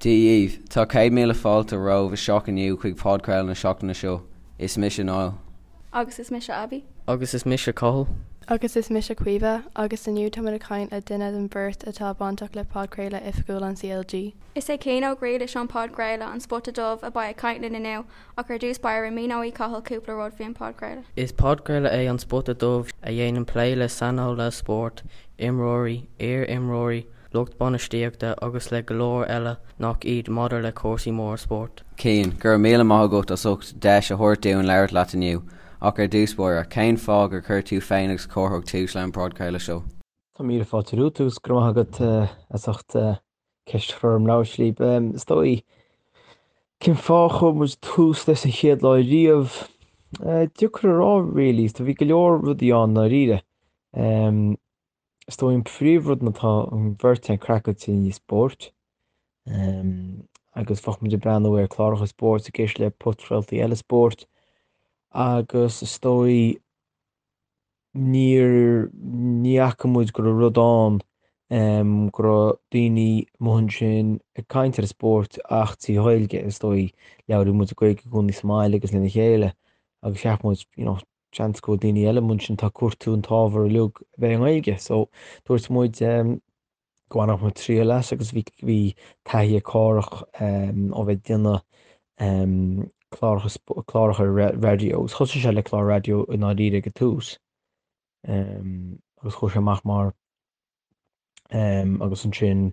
Dia dhaoibh, Tá 100,000 fáilte romhaibh isteach inniu chuig podchraoladh na seachtaine seo. Is mise Niall. Agus is mise Abby. Agus is mise Cathal. Agus is mise Caoimhe, agus inniu táimid ag caint le duine den bheirt atá bainteach le podchraoladh oifigiúil an CLG. Is é Cian Ó Griallais ón podchraoladh An Spota Dubh a beidh ag caint linn inniu, ach ar dtús báire míneoidh Cathal cúpla rud faoin podchraoladh. Is podchraoladh é An Spota Dubh a dhéanann plé le saineolaithe spóirt, imreoirí, iar-imreoirí, lucht bainistíochta agus le go leor eile nach iad maidir le cúrsaí móra spóirt. Cian, go raibh míle maith agat as ucht deis a thabhairt dúinn labhairt leat inniu. Ach ar dtús báire, cén fáth gur chuir tú féin agus Cárthach tús leis an bpodchraoladh seo? Tá míle fáilte romhat agus go raibh maith agat as ucht ceist a chur orm labhairt libh. Is dóigh, cén fáth a chuir muid tús leis an chéad lá riamh? Deacair a rá really, bhí go leor rudaí ann ndáiríre. Is dóigh an príomhrud ná tá an bheirt againn craiceáilte i ndiaidh spóirt agus bheadh muid ag breathnú ar cláracha spóirt ag éisteacht le podchraoltaí eile spóirt agus is dóigh níor ní fhaca muid go raibh rud ann go raibh daoine amuigh ansin ag caint ar an spórt ach trí Ghaeilge is dóigh labhraíonn muid Gaeilge i gcónaí sa mbaile agus lena chéile agus cheap muid you know seans go bhfuil daoine eile amuigh ansin atá ag cuartú an t-ábhar uilig a bheith i nGaeilge. So dúirt muid go mbainfeadh muid triail as agus bhí bhí taithí ag Cárthach ó bheith ag déanamh cláracha cláracha raidió agus thosaigh sé le clár raidió i ndáiríre ag an tús agus chuaigh sé amach mar agus ansin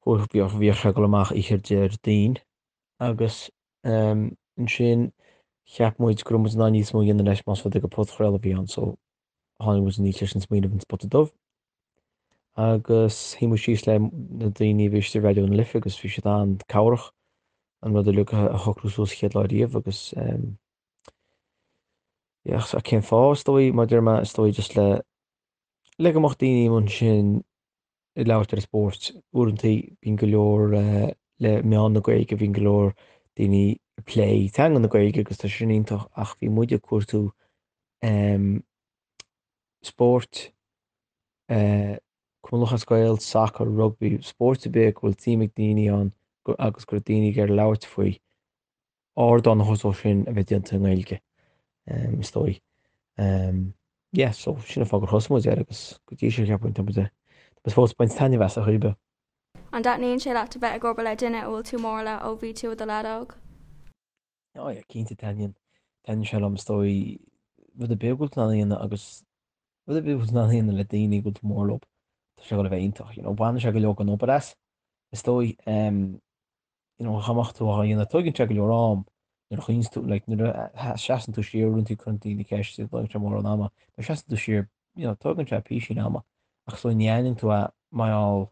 bhíodh bhíodh sé ag dul amach oíche Déardaoin agus ansin cheap muid go raibh muid in ann níos mó a dhéanamh leis más rud é gur podchraoladh a bhí ann so tháinig muid aníos leis an smaoineamh an Spota Dubh agus shuigh muid síos le na daoine a bhí istigh i Raidió na Life agus bhí siad an-cabhrach an rud uilig a shocrú suas chéad lá riamh agus yeah, cén fáth is dóigh mar deir mé is dóigh just le le go mbeadh daoine ansin ag labhairt ar an spórt. Uaireanta bíonn go leor le meán na Gaeilge, bíonn go leor daoine ag plé teanga na Gaeilge agus tá sin iontach ach bhí muid ag cuartú spóirt, Cumann Lúthchleas Gael, sacar, rugbaí, spóirt ar bith go bhfuil suim ag daoine ann agus go raibh daoine ag iarraidh labhairt faoi. ardán a thabhairt dó sin a bheith déanta i nGaeilge, is dóigh. Yeah, so sin an fáth gur thosaigh muid air agus go dtí seo cheapfainn tá muid tá muid fós ag baint taitneamh as ar chaoi ar bith. An dtaitníonn sé leat a bheith ag obair le duine a bhfuil tú mór le ó bhí tú i do leaid óg? Oh yeah, cinnte taitníonn. Taitníonn sé liom is dóigh rud ar bith go bhfuil tú in ann a dhéanamh agus rud ar bith go bhfuil tú in ann a dhéanamh le daoine go bhfuil tú mór leo, tá sé ag dul a bheith iontach, you know. Baineann sé go leor den obair as, is dóigh. You know, dá mbeadh tú á dhéanamh, tógann sé go leor am nuair a chuimhníonn tú, like, nuair a seasann tú siar, uaireanta cuireann daoine ceist, tógann sé mórán ama, nuair a seasann tú siar, you know, tógann sé písín ama, ach so ní aithníonn tú é mar gheall,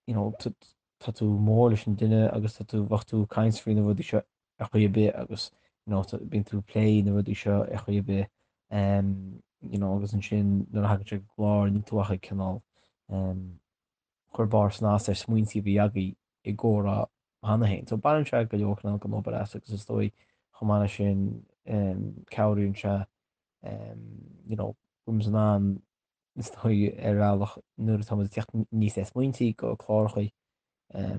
you know, tá tú mór leis an duine agus tá tú, bheadh tú ag caint faoi na rudaí seo ar chaoi ar bith agus, you know, bíonn tú ag plé na rudaí seo ar chaoi ar bith, um, you know, agus ansin nuair a thagann sé go clár, níl tú ach ag cineál, um, cur barr snas ar smaointí a bhí agaibh i gcomhrá cheana féin. So baineann sé go leor cineál den obair as agus is dóigh chomh maith leis sin cabhraíonn sé you know go bhfuil muid in ann is dóigh ar bhealach nuair atá muid ag teacht aníos le smaointí go cláracha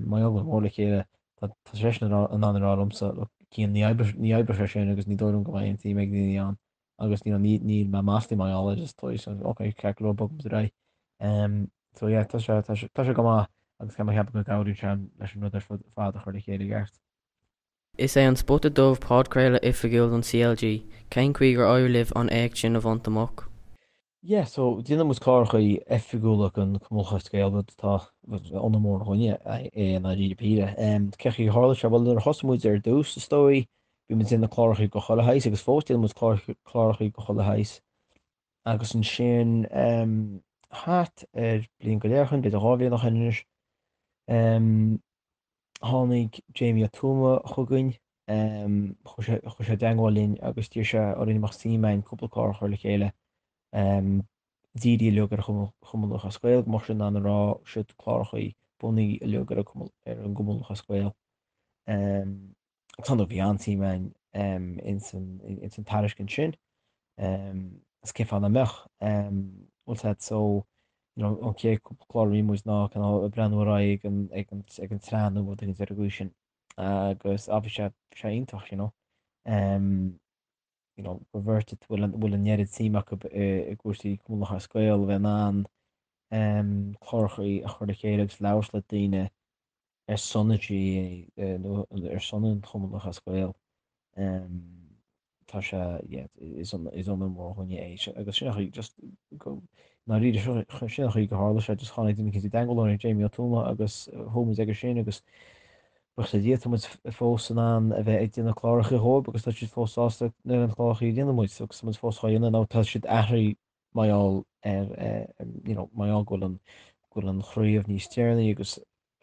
mar gheall go bhfuil mór le chéile tá seisean in ann a rá liomsa look Cian ní oibreoidh sé sin agus ní dóigh liom go mbeidh aon tsuim ag daoine ann agus you know ní níl mé maslaithe mar gheall air is dóigh so ok ceart go leor bogfaidh muid ar aghaidh. Um, so yeah tá sé tá sé tá sé go maith agus tá mé ag ceapadh go gcabhraíonn sé leis an rud ar fud fad a chur le chéile i gceart. Is é An Spota Dubh podchraoladh oifigiúil don CLG. Cén chaoi gur éirigh libh an éacht sin a bhaint amach? Yeah, so déanann muid cláracha oifigiúla don Chumann Lúthchleas Gael, rud atá ionadh mór dhúinne é i ndáiríre píre. Cén chaoi a tharla sé? Bhuel, nuair a thosaigh muid ar dtús, is dóigh, bhí muid ag déanamh cláracha go chuile shaghas agus fós déanann muid cláracha go chuile shaghas. Agus ansin, thart ar bliain go leith ó shin, b'fhéidir 2 bhliain ó shin anois, tháinig Jamie Ó Tuama chugainn, chuaigh sé chuaigh sé i dteagmháil linn agus d'iarr sé orainn an mbeadh suim againn cúpla clár a chur le chéile dírithe uilig ar Chumann Lúthchleas Gael, go mbeadh siad in ann a rá siod cláracha bunaithe uilig ar an gCumann Lúthchleas Gael. Agus ar ndóigh bhí an-suim againn ins an tairiscint sin, agus cén fáth nach mbeadh? Bhfuil a fhios agat so. You know, an chéad cúpla clár a bhí muid ná cineál ag breathnú ar aghaidh ag an, ag an, ag an tsraith nó rud éigin ar an gcaoi sin. Agus ah, bhí sé, bhí sé iontach, you know. Um, you know, gur bheirt a bhfuil an, bhfuil an oiread suim acu i, i gcúrsaí Cumann Lúthchleas Gael a bheith in ann um, clárachaí a chur le chéile agus labhairt le daoine ar son an GAA nó ar son an Chumann Lúthchleas Gael. Tá sé, yeah, is onóir mór dhúinne é agus sin an chaoi just go, ndáiríre, sin an chaoi go tharla sé, just tháinig duine éicint i dteagmháil linn, Jamie Ó Tuama agus chuaigh muid aige sin agus buíochas le Dia tá muid fós in ann a bheith ag déanamh cláracha dhóibh agus tá siad fós sásta leis na cláracha a dhéanann muid agus tá muid fós á dhéanamh nó tá siad athraithe mar gheall ar you know mar gheall go bhfuil an go bhfuil an chraobh níos deireanaí agus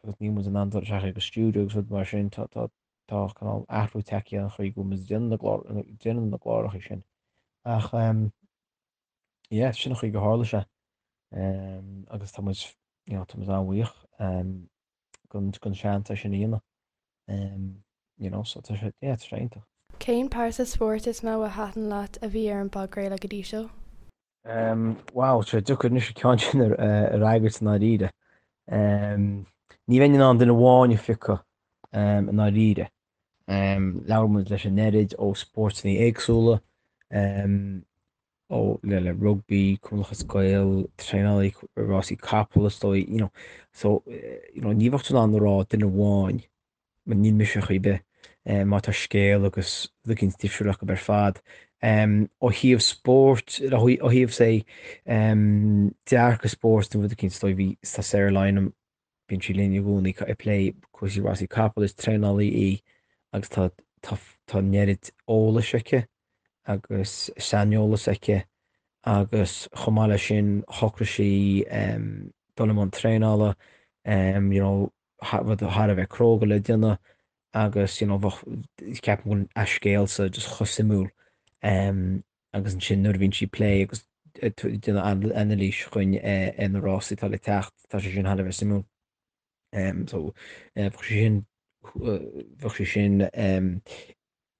agus níl muid in ann dul isteach ag an stiúideo agus rud mar sin tá tá tá cineál athrú tagtha ar an chaoi go bhfuil muid ag déanamh na gclár déanamh na gcláracha sin ach um, yeah sin an chaoi go tharla sé um, agus tá muid you know, tá muid an-bhuíoch um, den den seans é sin a dhéanamh um, you know, so tá sé yeah, tá sé iontach. Cén pearsa spóirt is mó a thaitin leat a bhí ar an bpodchraoladh go dtí seo? Um, wow, tá sé deacair anois an ceann sin a a fhreagairt i ndáiríre. Um, ní bheinn in ann duine amháin a phiocadh um, i ndáiríre. Um, labhair muid leis an oiread ó spórtanna éagsúla, um, ó le le rugbaí, Cumann Lúthchleas Gael, traenálaí rásaí capall is dóigh, you know. So, you know, ní bheadh tú in ann a rá duine amháin, mar níl mise ar chaoi ar bith, má tá scéal agus rud éicint difriúil acu ar fad. Ó thaobh spóirt, ó thaobh say, dearcadh spóirt nó rud éicint is dóigh bhí, tá Sarah Lynam, Bíonn sí linn i gcónaí ag plé cúrsaí rásaí capall, is traenálaí í agus tá tá tá an oiread eolais aici agus saineolas aici agus chomh maith leis sin shocraigh sí dul i mbun traenála, you know rud thar a bheith cróga le déanamh agus you know bheadh ceapaim go bhfuil a scéalsa just chomh suimiúil. agus ansin nuair a bhíonn sí ag plé agus ag déanamh anailís chugainn ar na rásaí atá le teacht, tá sé sin thar a bheith suimiúil. So bheadh sé sin, bheadh sé sin,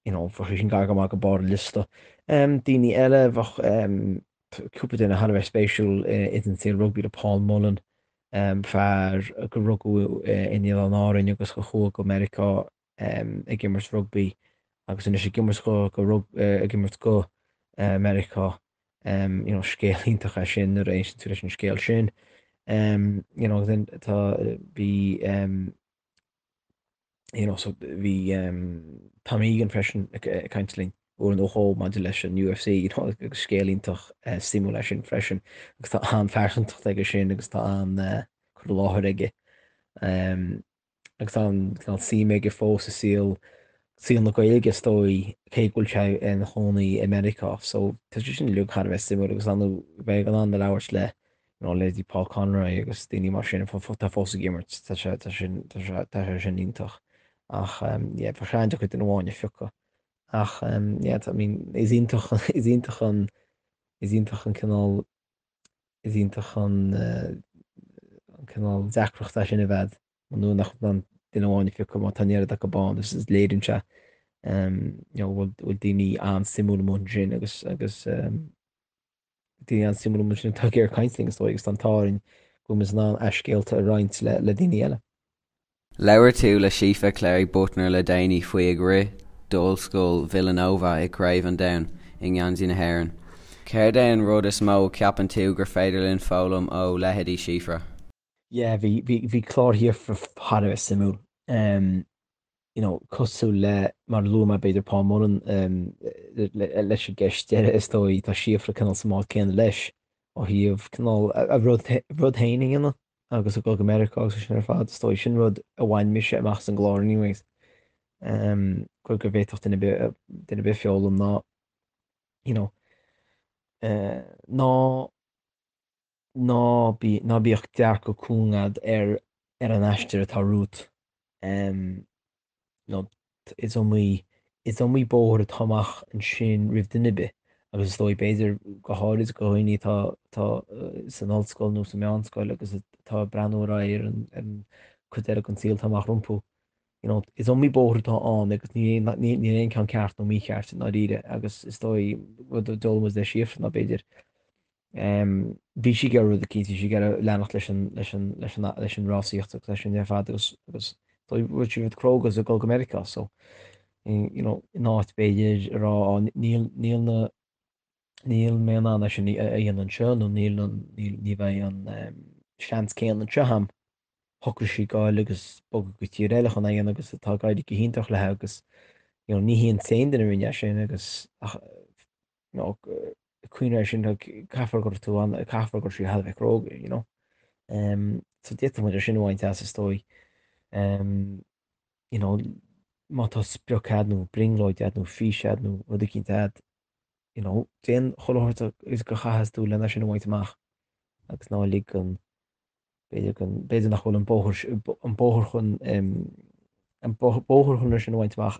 you know, bheadh sé sin gar go maith go barr an liosta. Daoine eile, bheadh cúpla duine thar a bheith spéisiúil ins an saol rugbaí le Paul Mullen, fear gur rugadh in Oileáin Árainn agus a chuaigh go Meiriceá ag imirt rugbaí agus anois ag imirt go go ag imirt go Meiriceá. You know, scéal iontach é sin nuair a éisteann tú leis an scéal sin. You know, then tá bhí you know, so bhí Tom Egan freisin ag caint linn uair nó dhó maidir leis an UFC, you know, agus scéal iontach suimiúil é sin freisin agus tá an-phearsantacht aige sin agus tá an-cur i láthair aige. Agus tá an cineál suim aige fós i saol saol na Gaeilge is dóigh, cé go bhfuil sé ina chónaí i Meiriceá. So tá sé sin uilig thar a bheith suimiúil agus an bheith in ann a labhairt le you know leithéidí Paul Conroy agus daoine mar sin atá fós ag imirt, tá sé tá sin tá sé tá sé sin iontach. Ach yeah bheadh sé an-deacair duine amháin a phiocadh. Ach yeah I mean is iontach is iontach an is iontach an cineál Is iontach an cineál deacracht é sin a bheith nuair nach bhfuil an duine amháin a phiocadh má tá an oiread acu ann is léiríonn sé you know go bhfuil daoine an-suimiúil amuigh ansin agus agus daoine an-suimiúil amuigh ansin atá ag iarraidh caint linn is dóigh agus tá an t-ádh orainn go bhfuil muid in ann a scéalta a roinnt le le daoine eile. Labhair tú le Síofra Cléirigh-Büttner le déanaí faoi ag rith d'Ollscoil Villanova i gCraobh an Domhain i ngeansaí na hÉireann. Céard é an rud is mó a cheapann tú gur féidir linn foghlaim ó leithéidí Síofra? Yeah, bhí, bhí, bhí clár Shíofra thar a bheith suimiúil. Um, you know, cosúil le, mar a luaigh mé b'fhéidir Paul Mullen, um, le, leis an gceist deiridh is dóigh, tá Síofra cineál sa mbád céanna leis ó thaobh cineál a, a rud, rud féin a dhéanamh. agus ag dul go Meiriceá agus sin ar fad, is dóigh. Sin rud a bhain mise amach as an gclár anyways. Um, go go bhféadfadh duine ar bith, duine ar bith foghlaim ná, you know, uh, ná ná bí, ná bíodh dearcadh cúng agat ar ar an aistear atá romhat. Um, nó is iomaí, is iomaí bóthar atá amach ansin roimh duine ar bith agus is dóigh, b'fhéidir, go háirid do dhaoine atá, atá san ollscoil nó sa meánscoil agus atá ag breathnú ar aghaidh ar an, ar an cuid eile den saol atá amach rompu. You know, is iomaí bóthar atá ann agus ní, ní, níl aon ceann ceart nó mícheart i ndáiríre agus is dóigh, rud a d'fhoghlaim muid le Síofra ná b'fhéidir. Bhí sí ag iarraidh rud eicínt, bhí sí ag iarraidh leanacht leis an, leis an, leis an, leis an rásaíocht agus leis sin ar fad agus, agus rinne sí rud cróga agus ag dul go Meiriceá so, you know, in áit b'fhéidir a rá á níl, níl na, níl mé in ann é sin a dhéanamh anseo nó níl an, níl, ní bheidh an seans céanna anseo a'm. Shocraigh sí goil agus bogadh go tír eile chun é a dhéanamh agus tá ag éirí go hiontach léi agus, you know, ní hí an t-aon duine a rinne é sin agus ach, you know, cuimhnigh air sin, caithfear go raibh tú an, caithfear go raibh sí thar a bheith cróga, you know. Um, so d'fhéadfadh muid é sin a bhaint as is dóigh. Um, you know, má tá sprioc a'd nó brionglóid a'd nó fís a'd nó rud eicínt a'd, you know, déan chuile shórt is go chaithfeas tú lena sin a bhaint amach agus ná lig an, b'fhéidir go, b'fhéidir nach bhfuil an bóthar, an bóthar chun, an bóthar chun é sin a bhaint amach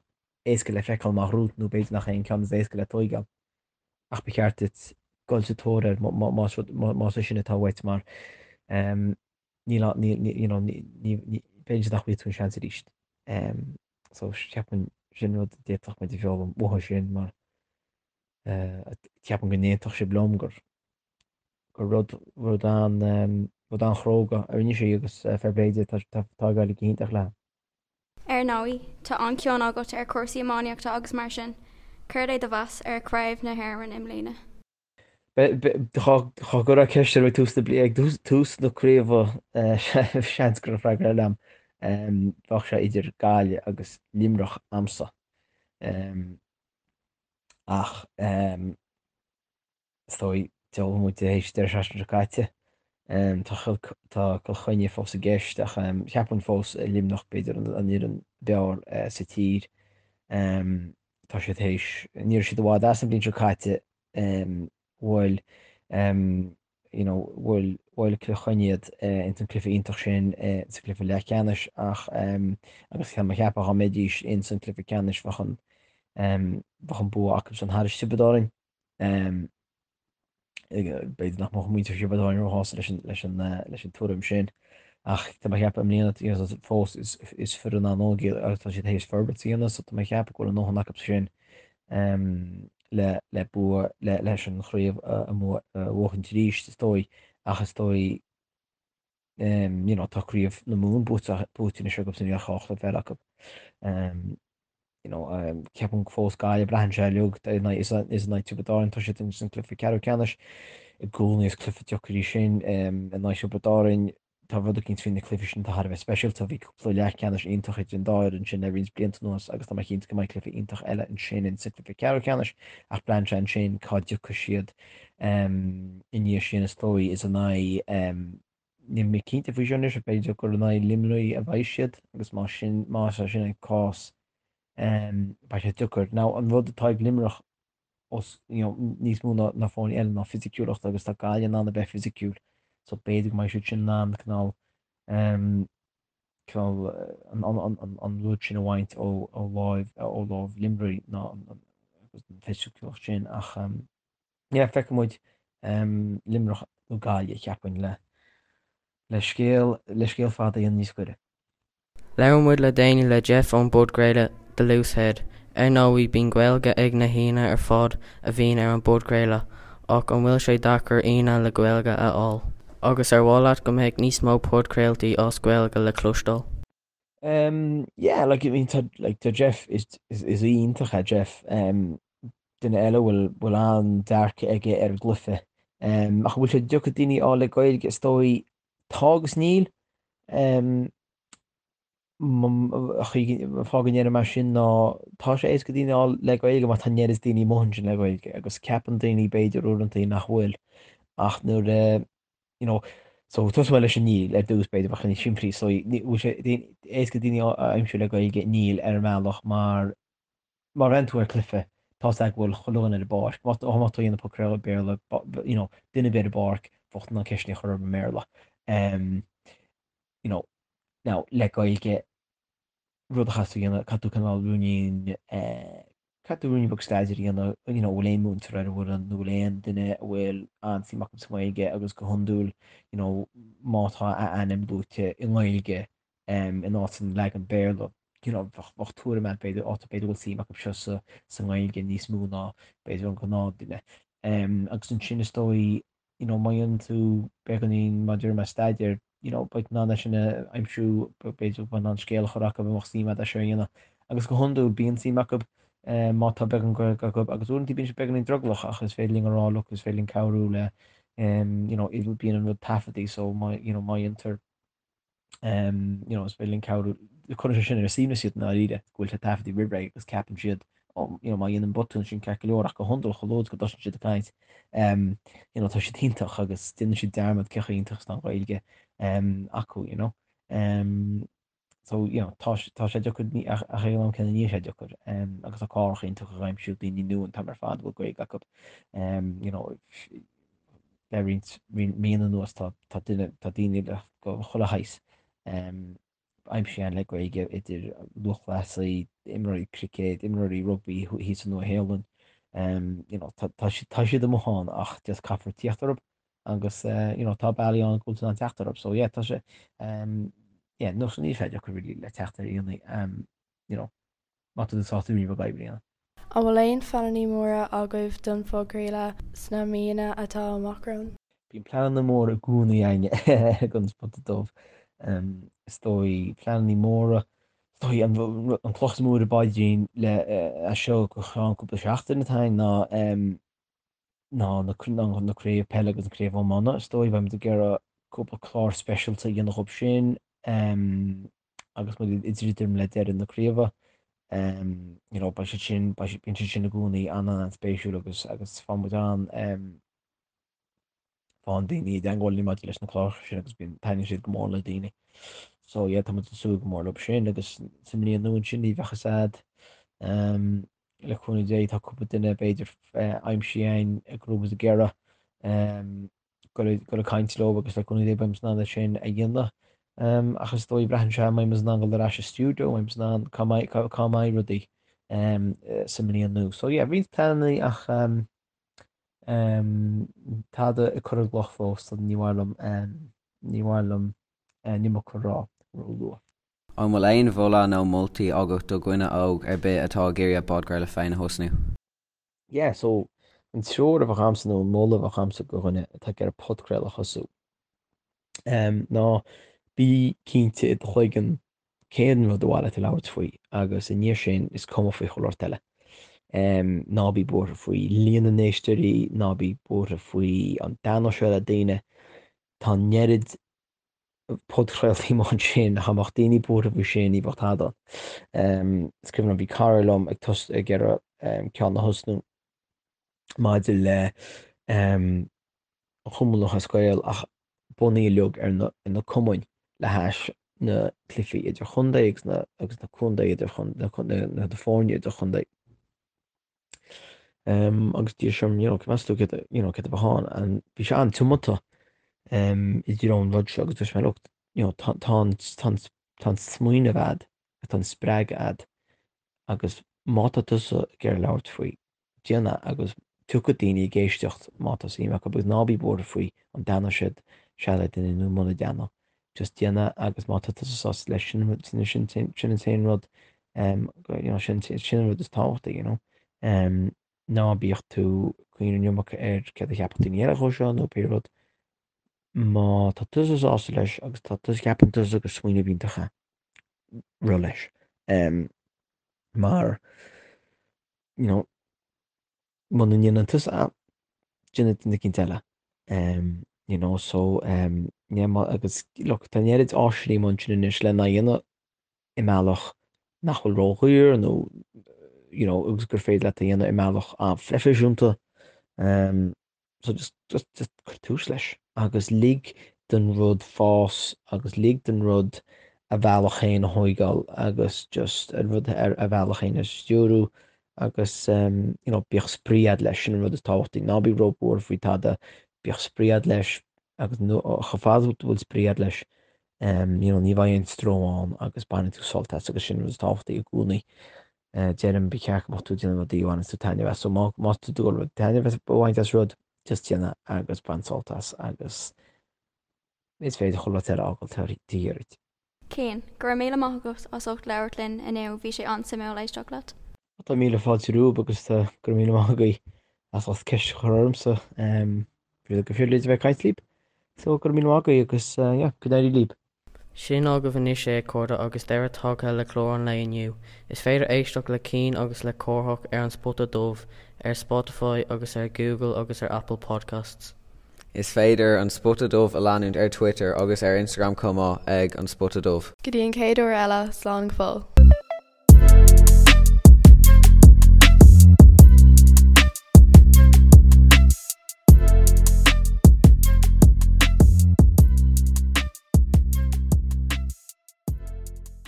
éasca le feiceáil amach romhat nó b'fhéidir nach é an ceann is éasca le tóigeáil ach ba cheart duit dul sa tóir air más rud, más é sin atá uait mar níl, níl, you know, ní, ní, b'fhéidir nach bhfaighidh tú an seans arís. So ceapaim sin rud a d'fhéadfadh muid a fhoghlaim uathu sin mar ceapaim go n-aontódh sibh liom gur gur rud, rud an, rud an-chróga a rinne sí agus fair play di, tá, tá ag éirí go hiontach léi. Ar ndóigh, tá an-chion agat ar chúrsaí iománaíochta agus mar sin, céard é do mheas ar Chraobh na hÉireann i mbliana? Dá gcuirfeá ceist orm ag tús na bliana, ag tús na craoibhe, seans go raibh freagra eile a'm. Bheadh sé idir Gaillimh agus Luimneach a'msa. Ach Is dóigh, d'fhoghlaim muid tar éis deireadh seachtaine seo caite. Tá tá Cill Chainnigh fós i gceist ach cheapfainn fós Luimneach b'fhéidir an fhoireann b'fhearr sa tír. Tá siad théis, ní raibh siad i bhfad as an bhliain seo caite, bhuail you know bhuail bhuail Cill Chainnigh iad ins an cluiche iontach sin sa cluiche leathcheannais ach agus tá mé ag ceapadh dá mbeidís ins an cluiche ceannais bheadh an bheadh an bua acu san thar Tiobraid Árann. B'fhéidir nach mbeadh muintir Thiobraid Árann róshásta leis an, leis an, leis an tuairim sin ach tá mé ag ceapadh i mbliana fós is, is foireann an-óg iad agus tá siad théis forbairt a dhéanamh so tá mé ag ceapadh go bhfuil a ndóthain acu sin le, le bua, le, leis an chraobh a, a bhuachaint arís is dóigh ach is dóigh you know, tá craobh na Mumhan buaite, buaite anois acu so níl ach 2 chluiche eile acu. You know, ceapaim fós Gaillimh, braitheann sé uilig, is in aghaidh Tiobraid Árann, tá siad ins an cluiche ceathrú ceannais, i gcónaí is cluiche deacair é sin in aghaidh Tiobraid Árann, tá rud eicínt faoi na cluichí sin atá thar a bheith speisialta, bhí cúpla leathcheannais iontach idir an dá fhoireann sin le roinnt blianta anuas agus tá mé cinnte go mbeidh cluiche iontach eile ansin in sa cluiche ceathrú ceannais ach braitheann sé ansin cá dtiocfaidh siad i ndiaidh sin is dóigh is in aghaidh níl mé cinnte faoi seo anois ach b'fhéidir gur in aghaidh Luimnigh a bheidh siad agus más sin más é sin an cás beidh sé deacair. Now an rud atá ag Luimneach os you know níos mó ná ná foirne eile ná fisiciúlacht agus tá Gaillimh in ann a bheith fisiciúil so b'fhéidir go mbeidh siad sin in ann cineál cineál an an an an rud sin a bhaint ó ó láimh ó láimh Luimnigh ná an an fisiciúlacht sin ach Yeah, feicfidh muid Luimneach nó Gaillimh, cheapfainn, le le scéal le scéal fada a dhéanamh níos gaire. Labhair muid le déanaí le Jeff ón bpodchraoladh The Loose Head. Ar ndóigh, bíonn Gaeilge ag na haíonna ar fad a bhíonn ar an bpodchraoladh, ach an bhfuil sé deacair aíonna le Gaeilge a fháil? Agus ar mhaith leat go mbeadh níos mó podchraoltaí as Gaeilge le cloisteáil? Um, yeah, like, I mean, tá, like, tá Jeff, is, is, is iontach é Jeff. Um, duine eile bhfuil, bhfuil an-dearcadh aige ar an gcluiche. Um, ach bhfuil sé deacair daoine a fháil le Gaeilge, is dóigh, tá agus níl. Um, fáth go ndeirim é sin ná tá sé éasca daoine a fháil le Gaeilge mar tá an oiread daoine amuigh ansin le Gaeilge agus ceapann daoine b'fhéidir uaireanta nach bhfuil ach nuair a you know, so tosóidh mé leis an níl ar dtús b'fhéidir bheadh sé níos simplí so bhfuil sé éasca daoine a aimsiú le Gaeilge níl ar an mbealach mar má bhreathnaíonn tú ar cluiche tá 's agat go bhfuil chuile dhuine ar an bpáirc má tá má tá dhéanamh podchraoladh Béarla you know, duine ar bith ar an bpáirc bheadh tú in ann ceisteanna a chur orthu i mBéarla um, you know, now le Gaeilge rud a chaithfidh tú a dhéanamh caithfidh tú cineál ruainnín eh, Caithfidh tú ruainnín beag staidéir a dhéanamh, you know, bhfuil aon múinteoir ar an bhfoireann nó bhfuil aon duine a bhfuil an-suim acu sa nGaeilge agus go hiondúil, you know, má tá a ainm luaite i nGaeilge em in áit an leagan Béarla, you know, bheadh, bheadh tuairim agat b'fhéidir, á tá b'fhéidir go bhfuil suim acu seo sa, sa nGaeilge níos mó ná b'fhéidir an gnáthduine. Em agus ansin is dóigh. you know, má dhéanann tú beagáinín mar a deir mé staidéir, you know, beidh tú in ann é sin a aimsiú, b'fhéidir go mbeidh in ann scéal a chur acu a mbeadh suim agat é seo a dhéanamh. Agus go hiondúil bíonn suim acu má tá beagán Gaeilge acu agus uaireanta bíonn siad beagáinín drogallach ach is féidir linn a rá look is féidir linn cabhrú le you know, bíonn an rud taifeadtaí so má, you know, má dhéantar you know, is féidir linn cabhrú, cuireann sé sin ar a suaimhneas iad i ndáiríre, go bhfuil sé taifeadtaí roimh ré agus ceapann siad, oh, you know, má dhéanaim botún sin ceart go leor ach go hiondúil chomh luath is go dtosaíonn siad ag caint, um, you know, tá siad iontach agus déanann siad dearmad cé chomh iontach is atá an Ghaeilge um, acu, you know. Um, so, you know, tá, tá sé deacair ach ag an am céanna níl sé deacair um, agus tá cláracha iontacha ag aimsiú daoine nua an t-am ar fad a bhfuil Gaeilge acu. Um, you know, le roinnt míonna anuas tá tá duine tá daoine le go chuile shaghas aimsithe againn le Gaeilge idir lúthchleasaí, imreoirí cruicéid, imreoirí rugbaí thíos sa Nua-Shéalainn. You know, tá tá siad tá siad amuigh ann ach just caithfear tíocht orthu agus you know, tá bealaí ann go bhfuil tú in ann teacht orthu. So yeah, tá sé yeah, no, so níl sé deacair really le teacht ar aíonna you know, má tá tú sásta rudaí beaga oibre a dhéanamh. An bhfuil aon phleananna móra agaibh don phodchraoladh sna míonna atá amach romhainn? Bíonn pleananna móra i gcónaí againne ag An Spota Dubh. Is dóigh, pleananna móra, is dóigh an cloch is mó ar an bpaidrín le as seo go ceann cúpla seachtain atá againn ná ná na na craobh peile agus an craobh iomána. Is dóigh beimid ag iarraidh cúpla clár speisialta a dhéanamh dhób sin. agus muid ag druidim le deireadh na craoibhe. You know, beidh siad sin, beidh siad, bíonn siad sin i gcónaí an-an-spéisiúil agus, agus faigheann muid an, faigheann daoine i dteagmháil linn maidir leis na cláracha sin agus bíonn, taitníonn siad go mór le daoine. So yeah, tá muid ag súil go mór leo sin agus sa mbliain nua ansin ní bheadh fhios a'd. Le cúnamh Dé tá cúpla duine b'fhéidir aimsithe againn go raibh muid ag iarraidh. Dul ag caint leo agus le cúnamh Dé beidh muid in ann é sin a dhéanamh. Ach is dóigh, braitheann sé an mbeidh muid in ann dul ar ais sa stiúideo, an mbeidh muid in ann, cá mbeidh, cá mbeidh rudaí sa mbliain nua. So yeah, roinnt pleananna ach tada ag cur i gcloch fós, so ní mhaith liom, ní mhaith liom an iomarca a rá ró-luath. An bhfuil aon mholadh nó moltaí agat do dhuine óg ar bith atá ag iarraidh a bpodchraoladh féin a thosnú? Yeah, so an treoir a bheadh a'msa nó an moladh a bheadh a'msa do dhuine atá ag iarraidh podchraoladh a thosú ná bí cinnte i do chloigeann cén rud ar mhaith leat a labhairt faoi agus i ndiaidh sin is cuma faoi chuile shórt eile. Ná bí buartha faoi líon na n-éisteoirí, ná bí buartha faoi an dtaitneoidh sé le daoine. Tá an oiread podchraoltaí amuigh ansin, dá mbeadh daoine buartha faoi sin, ní bheadh tada ann. Is cuimhin liom, bhí cara liom ag tos ag iarraidh ceann a thosnú maidir le an Chumann Lúthchleas Gael ach bunaithe uilig ar na ar na cumainn le hais na cluichí idirchontae agus na agus na contae idirchontae na na foirne idirchontae. Agus d'iarr sé orm, you know, meas tú céard, you know, céard a bheadh ann, and bhí sé an-tiomanta i dtreo an rud seo agus dúirt mé, look, you know, tá, tá an, tá an, tá an smaoineamh a'd, tá an spreagadh a'd agus má tá tusa ag iarraidh labhairt faoi, déan é agus tiocfaidh daoine ag éisteacht má tá suim acu agus ná bí buartha faoi an dtaitneoidh siad sé le duine nó muna dtaitneoidh. Just déan é agus má tá tusa sásta leis, sin, sin, sin, sin an t-aon rud you know, sin, sin an rud is tábhachtaí, you know. Ná bíodh tú ag cuimhneamh an iomarca ar céard a cheapfadh daoine eile dhó seo nó pé rud. Má tá tusa sásta leis agus tá tusa, ceapann tusa gur smaoineamh iontach é, rith leis. Mar, you know, muna ndéanann tusa é, déanfaidh duine eicínt eile. You know, so, yeah, agus look, tá an oiread áiseanna amuigh ansin anois lena dhéanamh i mbealach nach bhfuil ródhaor nó you know agus gur féidir leat a dhéanamh i mbealach an-phroifisiúnta. So just just just cuir tús leis agus lig don rud fás agus lig don rud a bhealach féin a thóigeáil agus just an rud ar a bhealach féin a stiúrú agus you know bíodh spraoi a'd leis, sin an rud is tábhachtaí. Ná bí róbhuartha faoi tada, bíodh spraoi a'd leis agus chomh fada is go bhfuil spraoi a'd leis you know, ní bheidh aon stró ann agus bainfidh tú sult as agus sin an rud is tábhachtaí i gcónaí. Deirim, ba cheart go mbeadh tú ag déanamh rudaí a bhaineanns tú taitneamh as, so má má tá tú ag dul taitneamh a bhaint as rud, just déan é agus bain sult as agus is féidir chuile rud eile a fhágáil taobh thiar duit. Cian, go raibh míle maith agat as ucht labhairt linn inniu, bhí sé an-suimiúil éisteacht leat. Tá míle fáilte romhaibh agus go raibh míle maith agaibh as ucht ceist a chur ormsa. Bhí go phribhléid a bheith ag caint libh. So go raibh míle maith agaibh agus yeah, go n-éirí libh. Sin agaibh anois é, a chairde, agus deireadh tagtha le clár an lae inniu. Is féidir éisteacht le Cian agus le Cárthach ar An Spota Dubh ar Spotify agus ar Google agus ar Apple Podcasts. Is féidir An Spota Dubh a leanúint ar Twitter agus ar Instagram chomh maith ag An Spota Dubh. Go dtí an chéad uair eile, slán go fóill.